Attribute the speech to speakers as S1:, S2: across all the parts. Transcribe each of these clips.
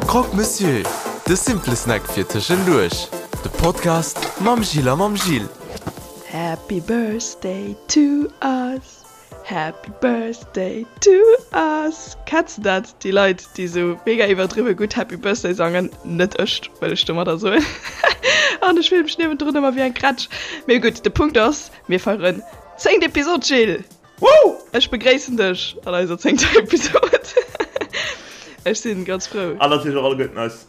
S1: Croque Monsieur, de simple Snack fir tëschenduerch. De Podcast mam Jill a mam Gilles.
S2: Happy Birthday to us, Happy Birthday to us. Kenns de dat, déi Leit, déi sou mega iwwerdriwwe gutt Happy Birthday sangen? Net ech, wëll ech domadder soen. An ech fillen mech niewendrun ëmmer wéi eng Krätsch. Mee gutt, de Punkt ass, mir feieren zéngt Episod, Gilles!
S3: Woo!
S2: Ech begréissen dech an eiser zéngter Episod. Ech sinn ganz frou.
S3: An natierlech och alleguerten eis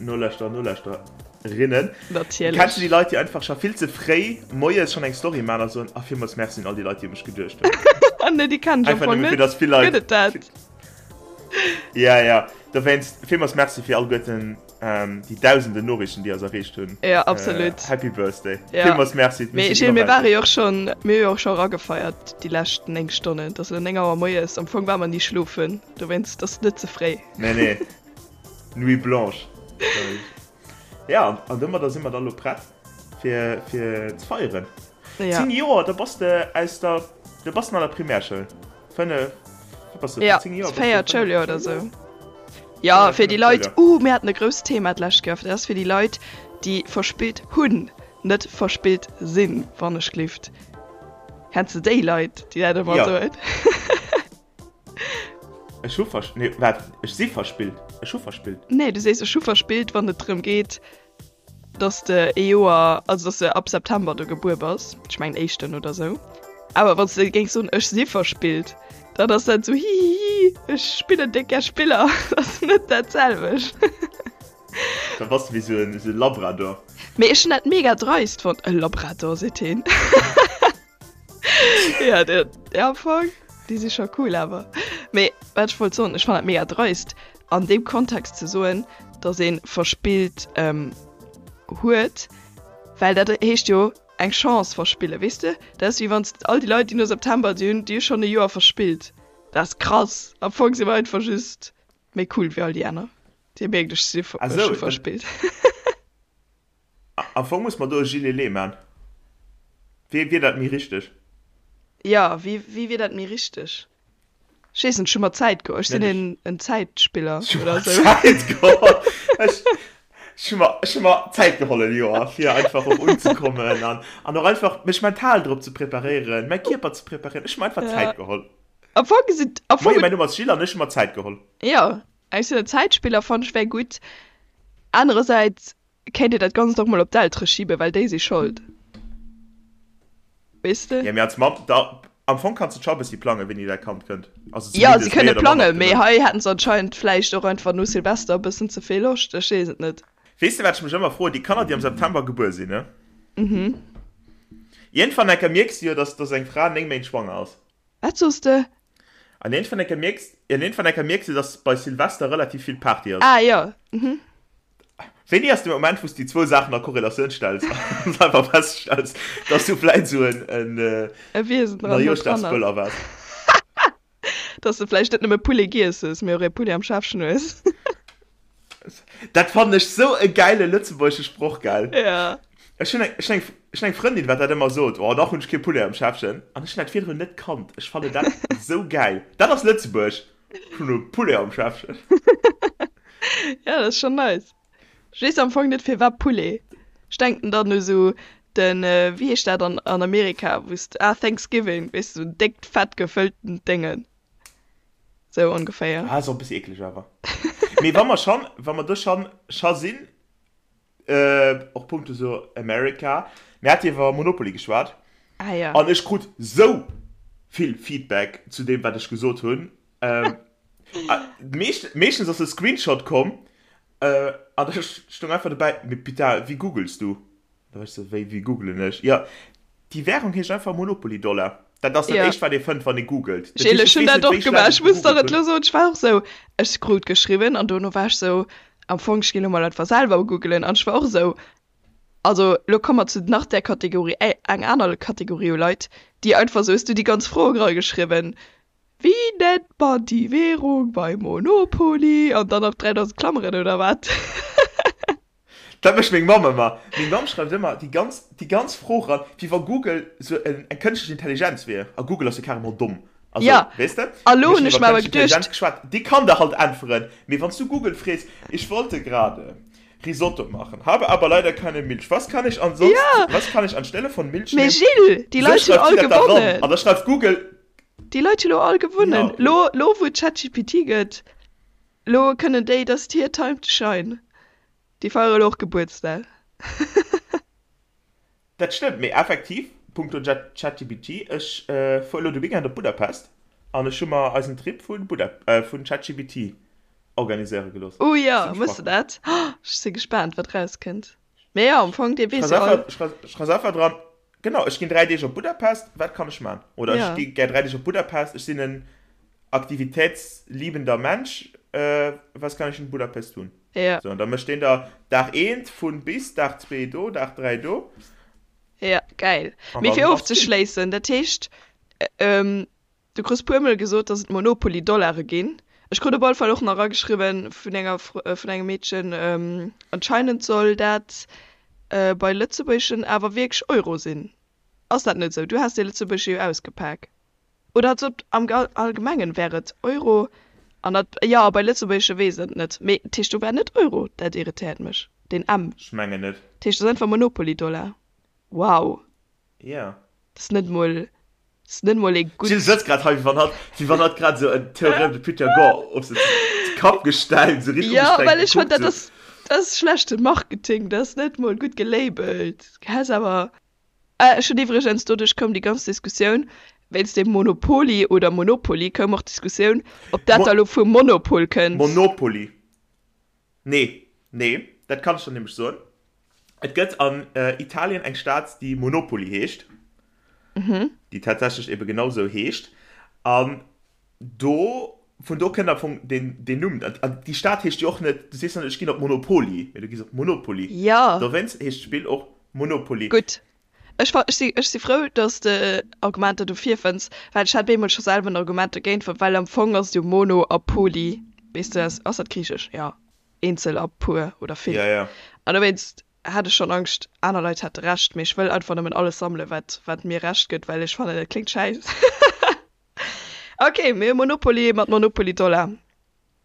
S3: Nolauschterer an Nolauschtererinnen.
S2: Natierlech.
S3: Kenns du déi Leit, déi einfach scho vill ze fréi moies schonn eng Story maachen a soen, Ah, villmools Merci un all déi Leit, déi u mech geduecht
S2: hunn. Nee, déi kennen ech am
S3: Einfach
S2: Fong
S3: nëmme fir
S2: net.
S3: dass vill Leit.
S2: Gëtt et dat?
S3: Ja, ja. Dowéinst villmools Merci fir alleguerten déi dausenden Noriichten, déi eis erreecht hunn.
S2: Ja, absolut.
S3: Happy Birthday.
S2: Ja.
S3: Villmools Merci.
S2: Mee Gilles, mir ware jo och schonn, mir hu jo och scho eragefeiert déi lescht 9 Stonnen. Et ass elo 9 Auer moies. Am Fong ware mer ni schlofen. Dowéinst ass et net ze fréi.
S3: Nee, nee. Nuit blanche. Ja, an domadder si mer da lo prett fir, fir ze feieren.
S2: Ja.
S3: 10 Joer, da bass de aus der, da bass de an der Primärschoul. 5, wat bass de,
S2: Ja,
S3: 10 Joer? bass de
S2: véiert
S3: fënneft
S2: Schouljoer oder
S3: Schouljoer?
S2: sou. Ja,
S3: Ja,
S2: fir déi
S3: fënneft
S2: Leit,
S3: Schouljoer.
S2: uh, mir haten e grousst Thema d'lescht Kéier, dat ass fir déi Leit, déi verspillt hunn, net verspillt sinn, wann ech glift. Kenns de déi Leit, déi dat ëmmer
S3: Ja.
S2: soen?
S3: Ech hu vers, nee, waart, ech si verspillt. Ech hu verspillt.
S2: Nee, du sees ech hu verspillt, wann et drëm geet, dass de ee Joer, also dass de ab September do gebuer bass, ech mengen éischten oder sou. Awer wann s de géings soen ech si verspillt, dann ass dat sou hihihi, ech spillen déck gär Spiller. Dat ass net dat selwecht.
S3: Da bass de wéi sou en, sou e Labrador.
S2: Mee ech hunn dat mega dreist fonnt. E Labrador, seet heen. Ja, der, der am Fong, déi si scho cool awer. Mee wat ech wollt soen, ech fannen dat mega dreist an deem Kontext ze soen, datt ee verspillt ähm, huet, well dat heescht jo eng Chance verspillen, weess de? Dat ass wéi wann s all déi Leit, déi no September, déi hunn, déi hu schonn e Joer verspillt. Dat ass krass. Am Fong si mer einfach just méi cool wéi all déi aner. Dir mierkt, ech si
S3: Ah
S2: ech
S3: sou,
S2: hu
S3: dann
S2: verspillt.
S3: Am Fong muss mer do e Gillet man. Wéi wier dat méi richteg?
S2: Jo, wéi wéi wier dat méi richteg? Ech weess net, ech hu mer Zäit geholl. Ech sinn
S3: Net ech.
S2: een en Zäitspiller
S3: Ech hu
S2: oder
S3: mer
S2: esou.
S3: Zäit geholl. Ech ech hu mer ech hu mer Zäit geholl en Joer, fir einfach och unzekommen an an och einfach mech mental drop ze preparéieren, mäi Kierper ze preparéieren. Ech hu mer einfach
S2: Ja.
S3: Zäit geholl.
S2: Am Fong sinn am Fong
S3: Moie, mäin Numm ass Gilles an ech hu mer Zäit geholl.
S2: Jo, ech sinn en Zäitspiller, fannt ech wär gutt. Anerersäits Kéint dir dat Ganzt och mol op d'Eltere schiben, well déi si Schold. Weess de?
S3: Ja, mee als Mamm, da, am Fong kanns de scho e bëssi plangen, wéini däi Kand kënnt. Also
S2: Ja, si
S3: zumindest méi
S2: kënne
S3: oder manner
S2: plangen, mee
S3: gewënnt.
S2: hei hätten se anscheinend vläicht och einfach no Silvester e bëssen ze vill Loscht, ech weess et net.
S3: Weess de, wat ech mech ëmmer froen? Déi Kanner, déi am September gebuer sinn, ne?
S2: Mhm.
S3: Iergendwann enker mierks de jo, dass, dass eng Fra 9 Méint schwanger ass.
S2: Wat soos de?
S3: An iergendwann enker mierks, an iergendwann enker mierks de, dass bei Silvester relativ vill Party ass.
S2: Ah, jo, mhm.
S3: Wéini ass de Moment, wou s de déi zwou Saachen a Korrelatioun stells an einfach feststells, dass du vläit esou en, en
S2: E Wiesen dran, dran ass.
S3: Neijooschdagsböller waars?
S2: Dass de vläicht net nëmme Poulet giess hues, mee och ee Poulet am Schäffchen hues.
S3: Dat fannen ech sou e gäile lëtzebuergesche Sproch, gell?
S2: Ja.
S3: Ech hunn eng, ech hunn eng, ech hunn eng Frëndin, wat dat ëmmer sot, Oh, nach hunn ech kee Poulet am Schäffchen. An ech hunn dat virdrun net kannt. Ech fannen dat sou gäil. Dat ass Lëtzebuerg. Ech hunn e Poulet am Schäffchen.
S2: Ja, dat ass schonn nice. Ech weess am Fong net firwat Poulet. Ech denken dann u sou den, wéi heescht dat an an Amerika, wou s de, ah, Thanksgiving, weess de, sou en déckt, fett gefëlltent Déngen. Sou ongeféier.
S3: Ah, ass och e bëssi eekleg awer. Mee wa mer schonn, wa mer do schonn scho sinn, och punkto sou America, mir hate iwwer Monopoly geschwat.
S2: Ah ja.
S3: An ech krut sou vill Feedback zu deem, wat ech gesot hunn. Meescht, meeschtens ass e Screenshot komm, an da stoung einfach dobäi, Mee putain, wéi googles du? Da war ech sou, Wéi, wéi googlen ech? Jo, déi Währung heescht einfach Monopoly-Dollar. Dat ass dat
S2: Ja.
S3: éischt, wat ee fënnt, wann ee googelt. Dat
S2: Gilles,
S3: heescht,
S2: ech
S3: ech
S2: hunn
S3: weess
S2: dat
S3: net,
S2: och
S3: wéi
S2: gemaach.
S3: schlecht ech
S2: Ech muss der
S3: gegoogelt
S2: et lo
S3: hunn.
S2: soen, ech war och sou, ech krut geschriwwen an dono war ech sou, am Fong, ech ginn lo mol einfach selwer googelen an ech war och sou, also lo komme mer zu nach där Kategorie, eng aner Kategorie u Leit, déi einfach sou, hues du déi ganz Fro erageschriwwen, Wéi nennt man déi Währung bei Monopoly? An dann nach 3000 Klammeren oder wat?
S3: Dat mécht meng Mamm ëmmer. Meng Mamm schreift ëmmer déi ganz, déi ganz Fro ran, wéi wa Google sou en, eng kënschtlech Intelligenz wier. A Google ass jo carrément domm. Also,
S2: Ja,
S3: weess de?
S2: a lo
S3: Mir
S2: hunn
S3: hunn
S2: ech
S3: iwwer
S2: mer awer
S3: kënschtlech Intelligenz
S2: geduecht,
S3: geschwat, déi kann der halt äntweren. Mee wann s du Google frees, Ich wollte gerade Risotto machen, habe aber leider keine Milch. Was kann ich ansonsten,
S2: ja,
S3: was kann ich anstelle von Milch
S2: mee
S3: nehmen?
S2: Gilles, déi
S3: Sou
S2: Leit hunn
S3: schreift
S2: all
S3: si dat da ran.
S2: gewonnen.
S3: An da schreift Google,
S2: Déi Leit hunn lo all
S3: ja,
S2: gewonnen.
S3: okay.
S2: Lo, lo wou et ChatGPT gëtt, lo kënnen déi, dat ass hir Time to shine. Déi feiere lo och Gebuertsdag.
S3: Dat stëmmt, mee effektiv, punkto ChatGPT, ech fuer elo de Weekend op Budapest an ech hu mer eisen Trip vu vun ChatGPT organiséiere gelooss.
S2: Oh jo,
S3: Zimmlech
S2: méchs de
S3: praktesch.
S2: dat? Ech si gespaant, wat erauskënnt. Mee jo, am Fong, dee weess
S3: Schreif
S2: jo all.
S3: einfach, schreif einfach dran, genau, ech ginn 3 Deeg op Budapest, wat kann ech man? Oder ech
S2: Ja.
S3: gi gär 3 Deeg op Budapest, ech sinn en aktivitätsliebender Mensch, was kann ich in Budapest tun?
S2: Ja.
S3: So, an da mécht deen der Dag eent vun bis, Dag zwee do, Dag 3 do.
S2: Ja, geil.
S3: An
S2: Mee
S3: dann
S2: fir
S3: ass gutt.
S2: ofzeschléissen, dat heescht, du krus puermol gesot, dass et Monopoly-Dollare ginn. Ech krut op alle Fall och nach erageschriwwen vun enger, vun engem Meedchen, anscheinend soll dat bei lëtzebuergeschen awer wierklech Euro sinn. Ass dat net esou? Du has dee lëtzebuergesche jo ausgepak. Oder als ob am Allgemengen wär et Euro an dat, jo, bei Lëtzebuergesche weess et net, mee dat heescht do war net Euro, dat irritéiert mech, deen M.
S3: Ech mengen net.
S2: Dat heescht, dat ass einfach Monopoly-Dollar. Wow.
S3: Jo.
S2: Dat ass net mol, dat ass net mol ee gutt.
S3: D'Jill sëtzt grad hei, wéi wann hatt, wéi wann hatt grad esou en Théorème de Pythagore op se Kapp gestellt, esou richteg
S2: Jo,
S3: ugestrengt
S2: well ech fannen,
S3: gekuckt,
S2: dat
S3: esou.
S2: ass, dat ass schlechte Marketing, dat ass net mol gutt gelabelt. Häss awer. Ech hunn iwwregens, doduerch koum déi ganz Diskussioun, wéinst deem Monopoly oder Monopoly koum och d'Diskussioun, ob dat da lo vum Monopol kënnt.
S3: Monopoly. Nee, nee, dat kann ech der nämlech soen. Et gëtt an Italien eng Stad, déi Monopoli heescht, déi tatsächlech ebe genau esou heescht. An do, vun do kënnt am Fong deen, deen Numm. An déi Stad heescht jo och net, du sees jo net, ech ginn op Monopoli, mee du gees op Monopoli.
S2: Jo.
S3: Dowéinst heescht d'Spill och Monopoly.
S2: Gutt. Ech fa, ech si, ech si frou, dass de Argumenter dofir fënns, well ech hat bemol scho selwer en Argument dogéint fonnt, well am Fong ass et jo Mono a Poly, weess de, ass, ass dat griichesch? Jo, eenzel a puer oder vill.
S3: Ja, ja.
S2: An dowéinst hat ech schonn Angscht, aner Leit hätte Recht, mee ech wëll einfach nëmmen alles sammelen, wat, wat mir Recht gëtt, well ech fannen, dat kléngt schäiss. Ok, mir hu Monopoly mat Monopoly Dollar.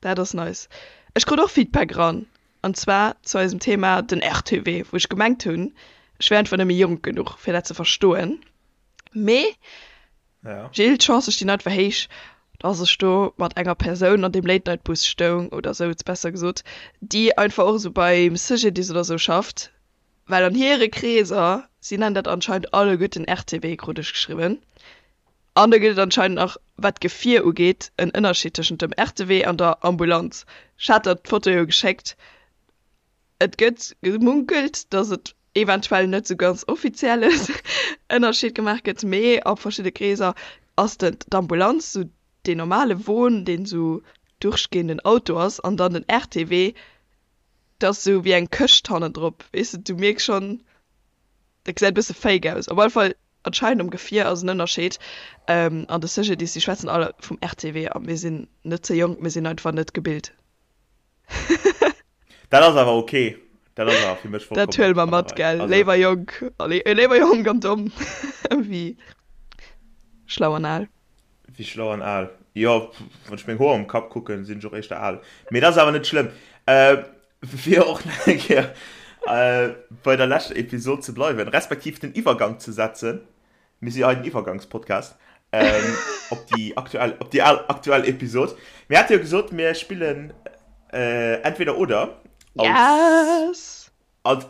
S2: Dat ass nice. Ech krut och Feedback eran, an zwar zu eisem Thema den RTW, wou ech gemengt hunn, ech wär einfach nëmme jonk genuch, fir dat ze verstoen. Mee,
S3: Ja.
S2: Gilles, d'Chancë stinn einfach héich, dass ech do mat enger Persoun an deem Late-Night-Bus stoung, oder souz, besser gesot, déi einfach och esou beim CGDIS oder esou schafft, well an hire Kreeser, si nennen dat anscheinend alleguerten RTW, krut ech geschriwwen. An da gëtt et anscheinend nach, wat d'Gefier ugeet, en Ënnerscheed tëschent dem RTW an der Ambulanz. Ech hat der d'Foto jo geschéckt. Et gëtt gemunkelt, datt et eventuell net sou ganz offizielle Ënnerscheed gemaach gëtt, mee a verschidde Kreeser ass den d'Ambulanz sou deen normale Won, deen sou durchgehenden Auto ass, an dann den RTW, dat ass sou wéi eng Këscht hannendrop, weess de. Du mierks schonn, dat gesäit e bësse fake aus. Op alle Fall Anscheinend um Gefier ass en Ënnerscheed. An de CGDIS, déi schwätzen all vum RTW a mir sinn net ze jonk, mir sinn einfach net gebilt.
S3: Dat ass awer ok. Dat ass awer fir mech
S2: Dat
S3: vollkommen
S2: huele mer
S3: an der
S2: mat,
S3: Rei.
S2: gell?
S3: Also.
S2: Léiwer jonk, léiwer jonk an domm wéi schlau an al.
S3: Wéi schlau an al? Jo, wann ech meng Hoer um Kapp kucken, sinn ech och éischter al. Mee dat ass awer net schlëmm. Fir och nach eng Kéier bei der leschter Episod ze bleiwen, respektiv den Iwwergang ze setzen, mir si hei den Iwwergangspodcast, op déi aktuell, op déi aktuell Episod. Mir hate jo gesot, mir spillen Entweder oder als,
S2: Yes!
S3: als,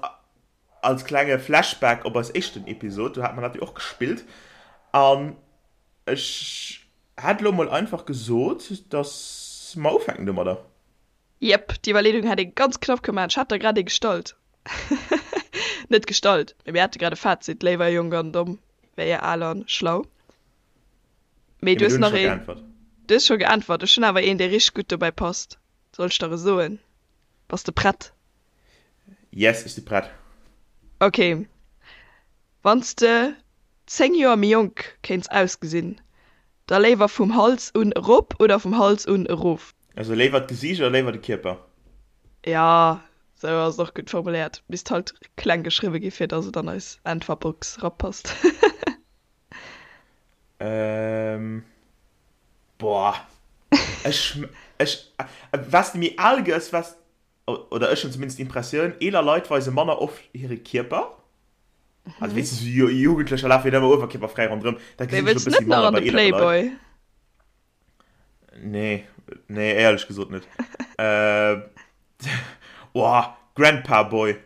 S3: als klenge Flashback op eis éischten Episod. Do hat mer dat jo och gespillt. An ech hätt elo mol einfach gesot, dass mer ufänken domadder.
S2: Jep, d'Iwwerleedung hätt ee ganz knapp kënne maachen. Ech hat der grad ee gestallt. Net gestallt, mee mir hate grad e Fazit, léiwer jonk an domm wéi al an schlau. Mee du hues nach een. Du hues scho geäntwert. Ech hunn awer een, dee richteg gutt dobäi passt. Soll ech der e soen? Bass de prett?
S3: Yes, ech si prett.
S2: Ok. Wann s de 10 Joer méi jonk kéints ausgesinn, da léiwer vum Hals un erop oder vum Hals un erof?
S3: Also léiwer d'Gesiicht oder léiwer de Kierper?
S2: Jo, sou ass et och gutt formuléiert. Misst halt kleng geschriwwe gi fir dass et an eis Äntwerbox rapasst.
S3: Ehm. Boah. Ech, ech, wat de méi al gëss, wat, oder ech hunn zumindest d'Impressioun, eeler Leit weise manner oft hire Kierper. Also weess de, sou Jugendlecher lafe jo net ëmmer uewerkierperfräi ronderëm. Dat
S2: Mee
S3: gesinn ech
S2: wëlls
S3: e
S2: net
S3: bëssi
S2: nach
S3: manner
S2: an
S3: bei
S2: de
S3: eelere Leit.
S2: Playboy?
S3: Nee, nee, éierlech gesot net. Äh, oh, Grandpa Boy.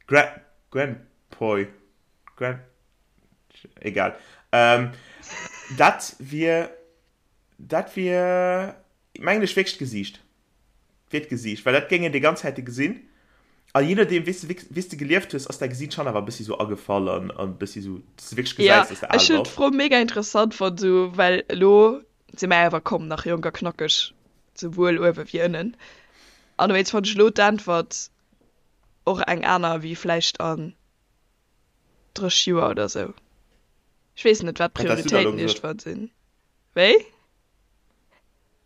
S3: Gra Grandpoy. Grand. Egal. Ähm, dat wier. Dat wier, mengen ech, wierklech d'Gesiicht. Wier d'Gesiicht, well dat géing een déi ganz Zäite gesinn. A jee nodeem, wéi s de, wéi s de gelieft hues, ass däi Gesiit schonn awer e bëssi sou agefall an e bëssi sou, dass de wierklech
S2: Ja,
S3: gesäis, dass de al
S2: ech hunn
S3: bass.
S2: d'Fro mega interessant fonnt, sou, well elo si mer awer komm nach jonk a knackeg, souwuel uewe wéi ënnen. An dowéinst fonnt ech elo d'Äntwert och eng aner wéi vläicht an 30 Joer oder sou. Ech weess net, wat
S3: Wat häss du da elo
S2: d'Prioritéiten
S3: gesot?
S2: iergendwann sinn. Wéi?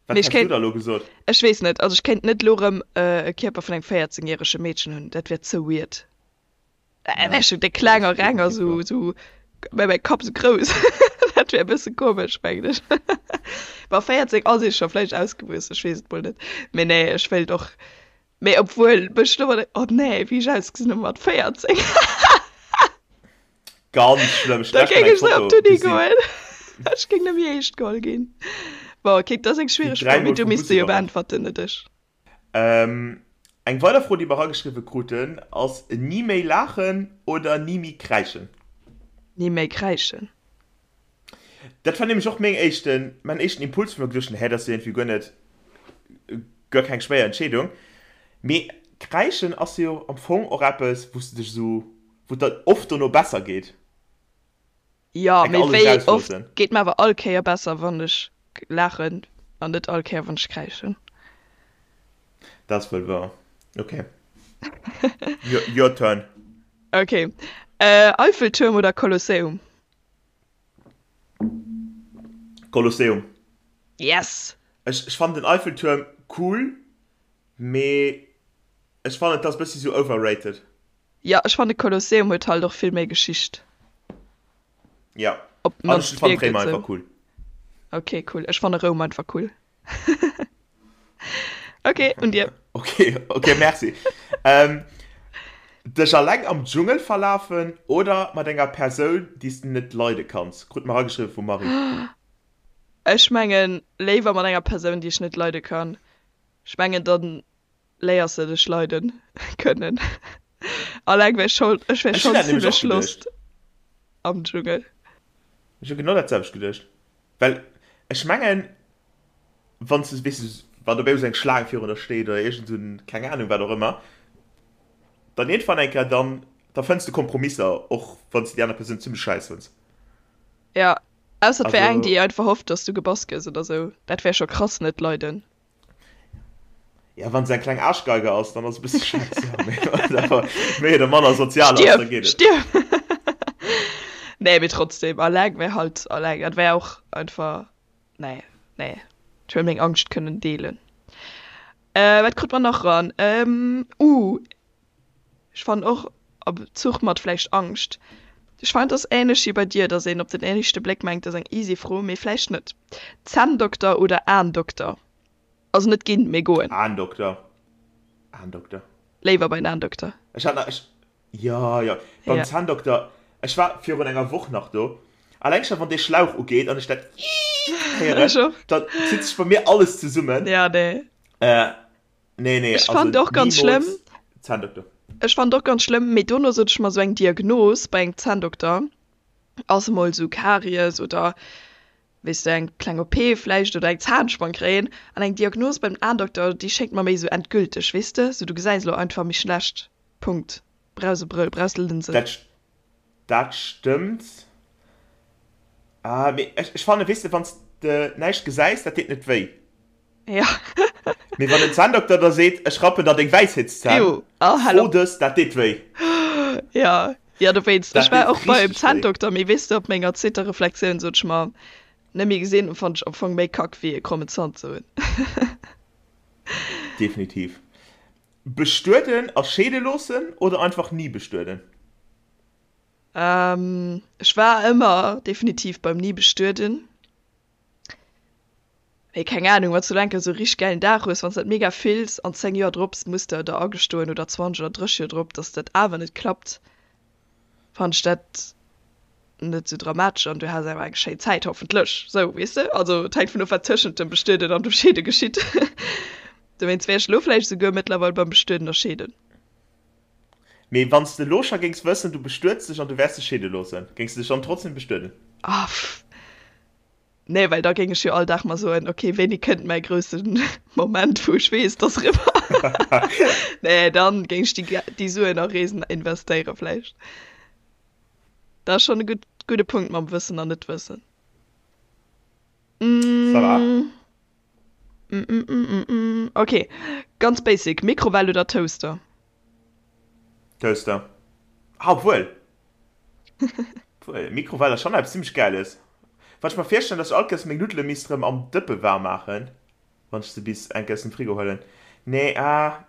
S3: Wat
S2: Mee ech
S3: häss du
S2: kéint,
S3: da elo gesot?
S2: ech weess net, also ech kéint net elo rëm e Kierper vun engem 14 järege Meedchen hunn, dat wär ze weird. Äh,
S3: Ja,
S2: wär schon déck
S3: dat
S2: kleng a
S3: ass
S2: reng a
S3: definitiv
S2: sou,
S3: wahr.
S2: sou, mä mäi Kapp sou grouss. Dat wär e bësse komesch, mengen ech. Bon, 14 ass ee scho vläicht ausgewuess, ech weess et mol net. Mee nee, ech wéilt och, mee obwuel mech elo mat, oh nee, wéi ech ausgesinn hu mat 14.
S3: Ganz schlëmm, ech
S2: Da
S3: hunn
S2: géing
S3: eng
S2: ech sou op
S3: Foto
S2: d'Uni
S3: gesinn.
S2: goen. Ech géing net méi eescht geholl ginn. Bon, ok, dat ass eng
S3: Déi
S2: schwiereg Fro, mee
S3: dräimol
S2: du
S3: vum
S2: misst
S3: Bus
S2: se jo
S3: iwwerrannt.
S2: beäntwerten, net ech.
S3: Eng weider Fro, déi mer erageschriwwe kruten, ass, Ni méi laachen oder ni méi kräischen?
S2: Ni méi kräischen.
S3: Dat war nämlech och meng éischten, mäin éischten Impuls, wou ech mer geduecht hunn, hä, dat ass jo iergendwéi guer net, guer keng schwéier Entscheedung. Mee kräischen ass jo am Fong och eppes, wou s de dech esou, wou et der oft dono besser geet.
S2: Jo,
S3: Enk
S2: mee
S3: alles
S2: wéi oft
S3: erausloossen.
S2: geet mer awer all Kéier besser, wann ech laachen an net all Kéier, wann ech kräischen.
S3: Dat ass wuel wouer. Ok. Your, your turn.
S2: Ok. Eiffeltuerm oder Kolosseum?
S3: Kolosseum.
S2: Yes!
S3: Ech, ech fannen den Eiffeltuerm cool, mee ech fannen et ass bëssi sou overrated.
S2: Jo, ech fannen de Kolosseum huet halt och vill méi Geschicht.
S3: Ja,
S2: Op
S3: an ech
S2: d'mannst
S3: fannen
S2: wierkt et
S3: Réimer
S2: sou.
S3: einfach cool.
S2: Ok, cool. Ech fanne Roum einfach cool. Ok, un dir.
S3: Ok, ok, merci. Ähm, dech alleng am Dschungel verlafen oder mat enger Persoun, déi s de net leide kanns? Krut mer ageschriwwe vum Marie.
S2: Ech mengen léiwer mat enger Persoun, déi ech net leide kann. Ech mengen dann léiers de dech leiden kënnen. Alleng wär schon, ech wär
S3: Ech hunn
S2: schon
S3: dat nämlech
S2: zimmlech
S3: och geduecht.
S2: lost am Dschungel.
S3: Ech hu genau dat selwecht geduecht. Well ech mengen, wann s de, weess de, wann dobäi esou eng Schlaang virun der steet oder iergend esou en, keng Anung, wat och ëmmer, dann iergendwann eng Kéier, dann, da fënns de Kompromisser, och wann s de déi aner Persoun zimmlech schäiss fënns.
S2: Ja, ausser et wär eng,
S3: Also.
S2: déi einfach hofft, dass du gebass gëss oder sou. Dat wär scho krass net leiden.
S3: Ja, wann se eng kleng Aarschgeige ass, dann ass e bësse schäiss, ja, mee wann se awer méi oder manner sozial ass, da
S2: Stierf!
S3: geet et.
S2: Stierf! Nee, mee trotzdem, alleng wär halt alleng. Dat wär och einfach, nee, nee. Ech wëll meng Angscht kënnen deelen. Äh, wat krut mer nach ran? Ähm, uh, ech fannen och a Bezuch mat vläicht Angscht. Ech fannen, et ass ähnlech wéi bei dir, dass een op den éischte Bléck mengt, dat ass eng easy Fro, mee vläicht net. Zänndokter oder Aendokter? Also net ginn, mee goen.
S3: Aendokter. Aendokter.
S2: Léiwer bei den Aendokter.
S3: Ech hat nach, ech, jo, jo, beim
S2: Ja.
S3: Zänndokter, ech war virun enger Woch nach do. Alleng scho wann dee Schlauch ugeet an ech dat Iiiit héieren,
S2: Ech och.
S3: dann zitt sech bei mir alles zesummen.
S2: Ja, nee.
S3: Äh, nee, nee,
S2: Ech
S3: also
S2: fand och ganz schlëmm.
S3: nimools Zänndokter.
S2: Ech fand och ganz schlëmm, mee dono sot ech mer, sou eng Diagnos bei engem Zänndokter ass emol sou Karies oder weess de, eng kleng OP vläicht oder eng Zahnspann kréien an eng Diagnos beim Aendokter, déi schéngt mer méi sou endgülteg, weess de, sou du gesäis elo einfach méi schlecht, Punkt, brauchs e Brëll, brauchs Lënsen.
S3: Dat, dat stëmmt. Ah, mee ech, ech fannen, weess de, wann s de näischt gesäis, dat deet net wéi.
S2: Ja.
S3: Mee wann den Zänndokter der seet, ech rappen der deng Wäisheetszänn,
S2: Ew, oh, hal
S3: fro
S2: op.
S3: dës, dat deet wéi.
S2: Ja, ja, dowéinst. Ech
S3: Dat
S2: war
S3: deet
S2: och beim
S3: richteg wéi.
S2: Zänndokter, mee weess de, op menger zweeter Reflexioun sot ech mer, net méi gesinn, fannt ech am Fong méi kack wéi e krommen Zant ze hunn.
S3: Definitiv. Bestueden a scheede loossen oder einfach ni bestueden?
S2: Ech war ëmmer definitiv beim ni bestueden. Mee keng Ahnung, wann s du elo eng Kéier esou e richteg gäilen Dag hues, wann s dat mega fills an 10 Joer drop muss de der agestoen oder 20 oder 30 Joer drop, dass dat awer net klappt, fannen ech dat net esou dramatesch an du has awer eng schéin Zäit, hoffentlech. Sou, weess de? Also et hänkt vun of, wat tëschent dem Bestueden an dem Scheede geschitt. Dowéinst wär ech elo vläicht esouguer mëttlerweil beim Bestueden a Scheeden.
S3: Mee wann s de elo scho géings wëssen, du bestuets dech an du wäers dech scheede loossen, géings de dech dann trotzdem bestueden?
S2: Ah, pff. Nee, well da géing ech jo all Dag mer soen, okay, wéini kënnt mäi grousse Moment, wou ech weess, et ass eriwwer. Nee, dann géing ech déi, déi Suen a Reesen investéiere vläicht. Dat ass schonn e gutt, gudde Punkt mam Wëssen an Net-Wëssen.
S3: Ça va?
S2: Okay, ganz basic, Mikrowell oder Toaster?
S3: Toaster. Ah, obwuel. Obwuel, Mikrowell ass schonn eppes zimmlech Gäiles. Wann ech mer virstellen, dass ech all Kéiers meng Nuddele misst erëm am Dëppe waarm maachen, wann ech se bis eng Kéier aus dem Frigo huelen. Nee, ah,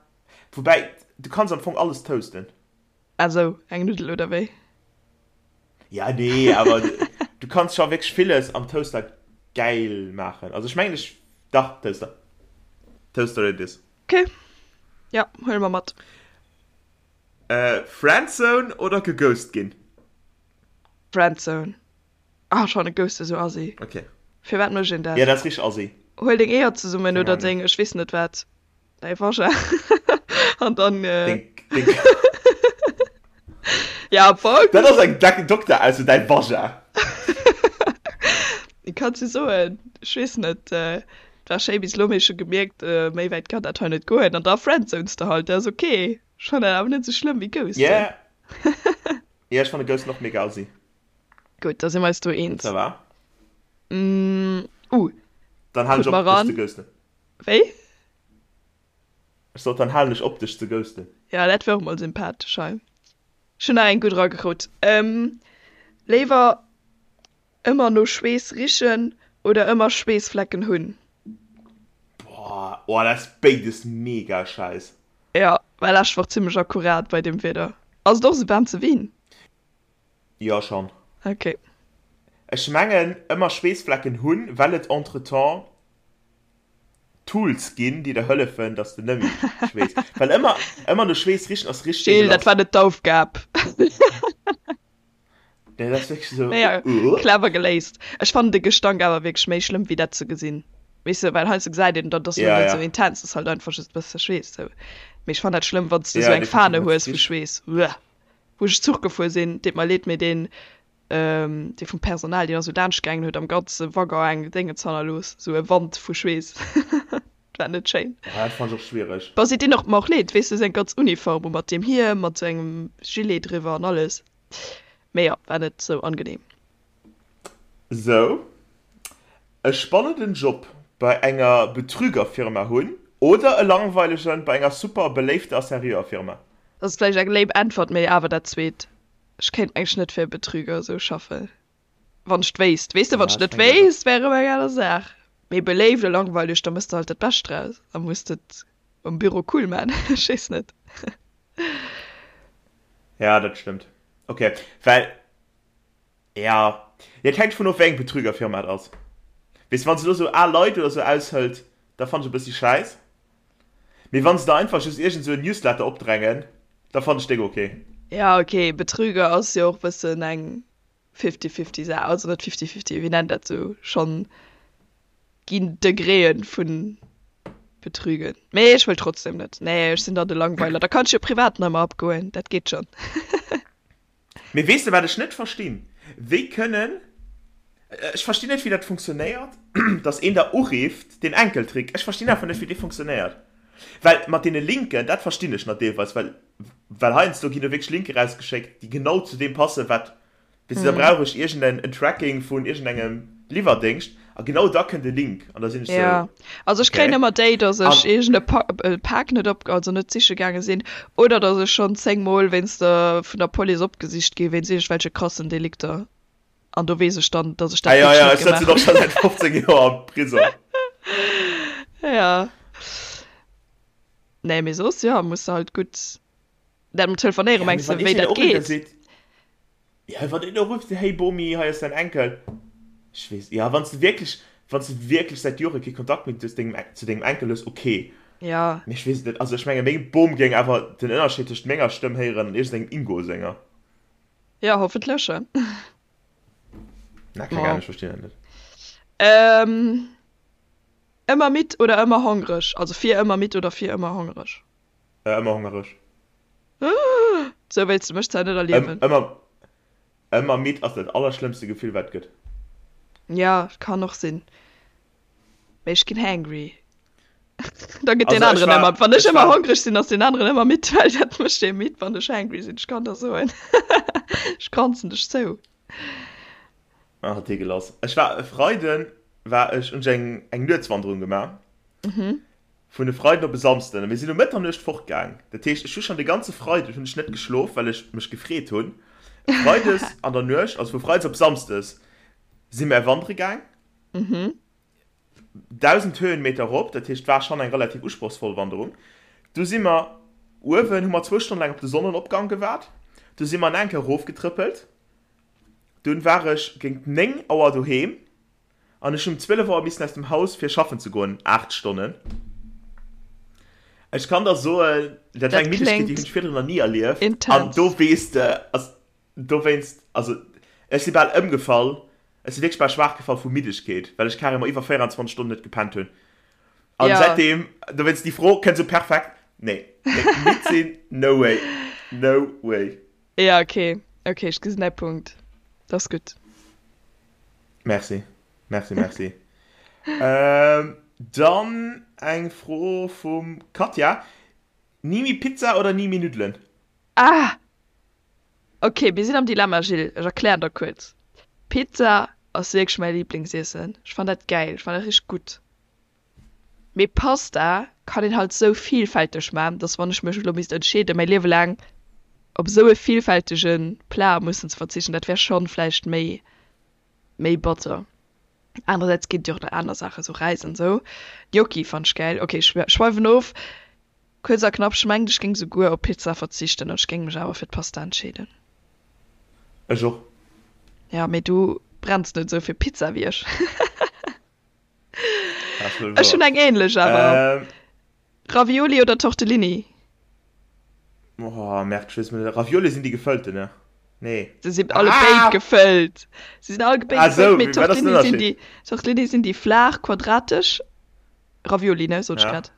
S3: woubäi, du kanns am Fong alles toasten.
S2: Ah sou, eng Nuddel oder wéi?
S3: Ja, nee, awer du kanns scho wierklech villes am Toaster gäil maachen. Also ech mengen, ech, dach, Toaster. Toaster it is.
S2: Ok, ja, huele mer mat.
S3: Friendzone oder geghost ginn?
S2: Friendzone. Ah, ech fannen Ghosten esou assi.
S3: Ok.
S2: Firwat mécht een dat?
S3: Ja, dat ass richteg assi.
S2: Huel deng Eeër zesummen
S3: Keng
S2: oder
S3: Ahnung.
S2: deng, ech weess net wat, däi Vagin an dann.
S3: Deng, deng.
S2: Ja, am Fong.
S3: Dat ass eng deck Dokterausso, däi Vagin.
S2: Kanns du soen, ech weess net, et war schéi bis elo, mee ech hu gemierkt, méi wäit kann dat hei net goen an da friendzones de halt, dat ass ok. Ech fannen dat awer net esou schlëmm wéi ghosten.
S3: Yeah. Yeah, ech fanne ghosten och mega assi.
S2: Gutt, da si mer eis do eens.
S3: Ça va.
S2: Uh,
S3: Dann halen
S2: krut
S3: ech
S2: mer
S3: op, dech
S2: ran.
S3: ze ghosten.
S2: Wéi?
S3: Ech sot, dann halen ech op, dech ze ghosten.
S2: Ja, dat wär och mol sympathesch hei. Ech hunn nach eng gutt eragekrut. Léiwer ëmmer no Schweess richen oder ëmmer Schweessflecken hunn?
S3: Boah, oh, dat ass béides mega scheiss.
S2: Jo, war lescht Woch zimmlech akkurat bei deem Wieder. Ass et och esou waarm zu Wien?
S3: Jo, schon.
S2: Ok.
S3: Ech mengen ëmmer Schweessflecken hunn, well et entretemps Tools ginn, déi der hëllefen, dass de nëmmi schweess. Well ëmmer, ëmmer no Schweess richen ass richteg
S2: Gilles, dat
S3: ekelhaft.
S2: war net d'Aufgab.
S3: Nee, dat ass wierklech esou,
S2: Naja,
S3: uh.
S2: clever geléist. Ech fannen de Gestank awer wierklech méi schlëmm wéi dat ze gesinn. Weess de, well heiansdo gesäit een, dat ass lo
S3: Ja,
S2: net
S3: ja.
S2: esou intens, ass halt einfach just e bësse Schweess sou. Mee ech fannen dat schlëmm, wann s de
S3: Ja,
S2: esou eng
S3: definitiv,
S2: Fahne
S3: wann s
S2: hues
S3: de
S2: vu
S3: riechs.
S2: Schweess. Uah. Wou ech Zuch gefuer sinn, deet mer leed, mee deen, dee vum Personal, deen ass esou laanscht gaangen, huet am ganze Waggon eng Déngens hannerlooss, esou e Wand vu Schweess. Dat war net schéin.
S3: Ah, dat fannen ech och schwiereg.
S2: Bon, si dinn och mer och leed, weess de, seng ganz Uniform u mat deem Hiem, mat sou engem Gilet driwwer an alles. Mee jo, war net sou angenehm.
S3: Sou e spannenden Job bei enger Betrügerfirma hunn oder e langweilegen bei enger super beléifter a seriöer Firma?
S2: Dat ass vläicht eng lame Äntwert, mee awer dat zweet. Ech kéint mengen net fir e Betrüger esou schaffen, wann ech wéisst. Weess de, wann ech net wéisst, wär erëm eng aner Saach. Mee beléift a langweileg, da mëss de halt dat Bescht draus a muss et um Büro cool man. Ech weess net.
S3: Ja, dat stëmmt. Ok, well, ja, et hänkt vun of, wéi eng Betrügerfirma et ass. Weess de, wann se elo sou al Leit oder sou aushëlt, da fannen ech e bëssi schäiss. Mee wann se der einfach just iergend sou en Newsletter opdrängen, da fannen ech déck ok.
S2: Ja ok, Betrüger ass jo och bëssen eng fifty-fifty Saach, also net fifty-fifty, wéi nennt dat sou, schonn ginn Degréen vun Betrügen. Mee ech wëll trotzdem net, nee ech sinn dann de Langweiler, da kann ech jo privat nach ëmmer abgoen, dat geet schonn.
S3: Mee weess de wat ech net verstinn? Wéi kënnen, ech verstinn net wéi dat funktionéiert, dass een der urifft, deen Enkeltrick, ech verstinn einfach net wéi dee funktionéiert. Well mat deene Linken, dat verstinn ech nach deelweis, well well heiansdo ginn do wierklech Linke rausgeschéckt, déi genau zu deem passen, wat Weess de, da brauch ech iergend en Tracking vun iergendengem Liwwerdéngscht a genau da kënnt e Link an da sinn ech sou,
S2: Ja, also ech kréien
S3: okay.
S2: ëmmer déi, dass ech
S3: An
S2: iergend e Pak net op, also net siche gaange sinn oder dass ech schonn 10 mol wéinst der, vun der Police opgesicht gi wéinst iergendwelche krassen Delikter an do weess ech dann, dass ech
S3: ah
S2: dat
S3: ja,
S2: wierklech
S3: ja,
S2: net
S3: ech sëtzen
S2: gemaach
S3: och scho säit 15 Joer am Prisong.
S2: hunn. Ja. Nee, mee soss, jo, muss de halt gutt dat mat telefonéiere
S3: Ja, mee
S2: mengs de,
S3: wann
S2: wéi
S3: iergendeen
S2: dat
S3: urifft a
S2: geet?
S3: seet, Ja, wann een do rifft, hey Bomi, hei ass däin Enkel. Ech weess, ja, wann s de wierklech. Wann s de wierklech säit Jore kee Kontakt méi zu dengem, zu dengem Enkel hues, ok.
S2: Ja.
S3: Mee ech weess et net. Also ech menge meng Bom géing awer den Ënnerscheed tëscht menger Stëmm héieren an iergendengem Ingo senger.
S2: Ja, hoffentlech.
S3: Na, keng Ahnung, ech verstinn dat net.
S2: Ähm, ëmmer midd oder ëmmer hongreg? Also fir ëmmer midd oder fir ëmmer hongreg?
S3: Äh, ëmmer hongereg.
S2: Sou wéilts de mech zwar net erliewen.
S3: Ëmmer, ëmmer midd ass dat allerschlëmmste Gefill wat et gëtt.
S2: Ja, kann och sinn. Mee ech ginn hangry. Da gëtt deen
S3: Also ech
S2: aneren
S3: war,
S2: ëmmer, wann ech
S3: ech
S2: ëmmer
S3: war,
S2: hongreg sinn, ass deen aneren ëmmer midd, well dat mécht ee midd, wann ech hangry sinn. Ech kann der soen, ech kranzen dech zou.
S3: Ah, deegelass. Ech war e Freiden war ech, hunn ech eng, eng Nuetswanderung gemaach. Vun e Freiden op e Samsden. A mir sinn um Mëtternuecht fortgaang. Dat heescht, ech hu schonn de ganze Freiden hunn ech net geschlof, well ech mech gefreet hunn. Freides an der Nuecht, also vu Freides op Samsdes, si mär wandere gaang. 1.000 Höhenmeter erop, dat heescht, war schonn eng relativ usprochsvoll Wanderung. Du si mer uewen, hu mer zwou Stonne laang op de Sonnenopgang gewaart. Du si mer nach eng Kéier erofgetrëppelt. Dunn war ech géint 9 Auer doheem. An ech hunn um 12 Auer missen aus dem Haus fir schaffen ze goen, 8 Stonnen. Ech kann der soen, dat war eng Middegkeet, déi hunn ech virdrun nach ni erlieft. An do weess de, also dowéinst, also ech si bal ëmgefall, ech si wierklech bal schwaach gefall vu Middegkeet, well ech carrément iwwer 24 Stonnen net gepennt hunn. An säitdeem, dowéinst déi Fro kënnt esou perfekt, nee, nee, midd sinn, no way, no way.
S2: Ja, okay, okay, ech gesinn däi Punkt, dat ass gutt.
S3: Merci, merci, merci. ähm, dann eng Fro vum Katja. Ni méi Pizza oder ni méi Nuddelen?
S2: Ah! Okay, mir sinn am Dilemma, Gilles. Ech erklären der kuerz. Pizza ass wierklech mäi Liblingsiessen. Ech fannen dat gäil, ech fannen dat richteg gutt. Mee Pasta kann een halt sou vielfälteg man, dass wann ech mech elo misst entscheeden, mäi Liewe laang op sou e vielfältege Plat mussen ze verzichten, dat wär schonn vläicht méi méi batter. Anerersäits ginn et jo och nach aner Saachen, sou Räis an sou. Gnocchi fann ech gäil. Ok, ech schweiwen of. Kuerz a knapp, ech mengen ech géing souguer op Pizza verzichten an ech géing mech awer fir d'Pasta entscheeden.
S3: Ech och.
S2: Ja, mee du brenns net sou fir Pizza wéi ech. Ech hunn eng ähnlech awer. Ähm. Ravioli oder Tortellini?
S3: Oh, merk, ich weiß nicht. Ravioli sind die gefëllten, ne? Nee.
S2: Se sinn alle ah! béid gefëllt. Se sinn all béid ah, gefëllt, mee Tortellini sinn déi, Tortellini sinn déi flaach, quadratesch. Ravioli, ne, sot ech grad.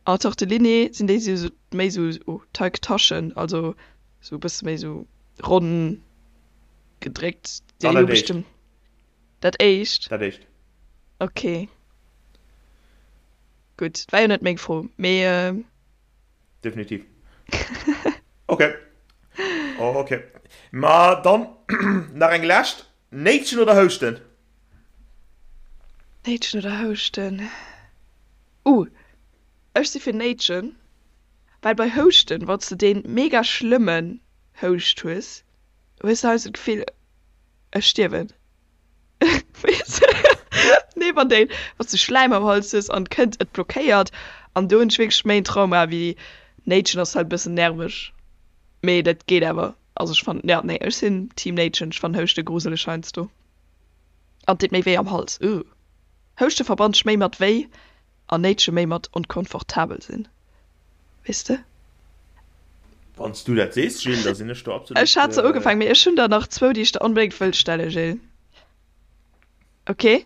S2: An Tortellini sinn déi sou méi sou oh, Teigtaschen, also sou e bësse méi sou ronn gedréckt. Déi hu bestëmmt. Dat éischt?
S3: Dat éischt.
S2: Ok. Gutt, war jo net meng Fro, mee.
S3: Definitiv. Ok. Ok. Ma dann nach eng lescht. Néitschen oder houschten?
S2: Néitschen oder houschten? Uh, ech si fir néitschen, well bei houschten, wann s de dee mega schlëmmen Houscht hues, hues de heiansdo d'Gefill, Ech stierwen. Weess Nee, wann déi, wann s du Schläim am Hals hues an kënnt, et blockéiert an do hunn ech wierklech méi en Trauma wéi Néitschen ass halt e bëssen nerveg, mee dat geet awer. Also ech fannen, ja nee, ech sinn Team Néitschen, ech fannen Houschte gruseleg heiansdo an et deet méi wéi am Hals, ugh. Houschte verbannt ech méi mat wéi an Néitsche méi mat onkomfortabel sinn, weess de?
S3: Wann s du dat sees, Jill, da sinn ech do absolut.
S2: Ech hat se ugefaangen, mee ech hunn der nach zwou, déi ech der onbedéngt wëll stellen, Jill. Ok?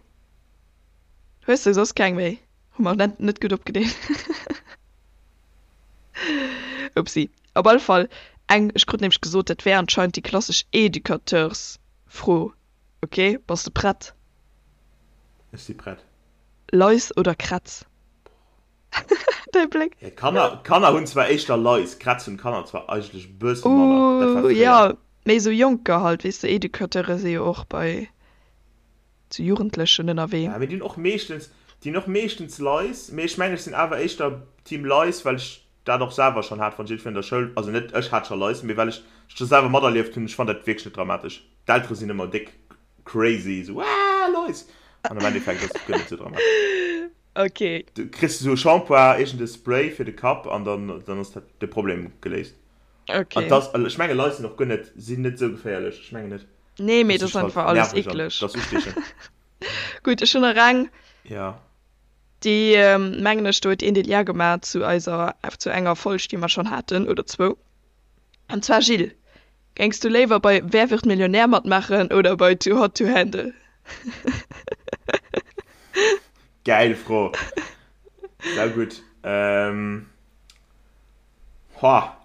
S2: Hues de soss keng méi? Hu mer net, net gutt opgedeelt. Upsi. Op alle Fall eng, ech krut nämlech gesot, dat wär anscheinend déi klassesch Educateursfro. Ok, bass de prett?
S3: Ech si prett.
S2: Lais oder Krätz? Däi Bléck.
S3: Ja, d'Kanner, d'Kanner hunn zwar éischter Lais, Krätz hunn d'Kanner zwar eigentlech e bësse manner.
S2: Dat war Uh, fréier. ja, méi sou Jonker halt, weess de, Educateure si jo och bei sou Jugendlechen ënnerwee.
S3: Ja, mee déi hunn och meeschtens, déi hunn och meeschtens Lais, mee ech mengen, ech sinn awer éischter Team Lais, well ech dat och selwer schonn hat, wann ech iergendwéi an der Schoul, also net ech hat scho Lais, mee well ech scho selwer materlieft hunn, ech fannt dat wierklech net dramatesch. D'Eltere sinn ëmmer déck crazy, sou aah Lais! An am Endeffekt ass et guer net sou dramatesch.
S2: Ok.
S3: Du kriss esou e Shampoing, iergend e Spray fir de Kapp an dann, dann ass dat de Problem geléist.
S2: Ok.
S3: An dass, ech menge Lais sinn och guer net, sinn net sou geféierlech, ech mengen net.
S2: Nee, mee dat ass einfach alles eekleg.
S3: Dat ass ustiechend.
S2: Gutt, ech hunn nach eng.
S3: Ja.
S2: Déi, mengen ech, do huet een de Lien gemaach zu eiser, zu enger Folg, déi mer schonn haten, oder zwou. An zwar, Gilles, géings du léiwer bei Wer wird Millionär matmaachen oder bei Too Hot to Handle?
S3: Gäil Fro. Saugutt. Ähm, hoa.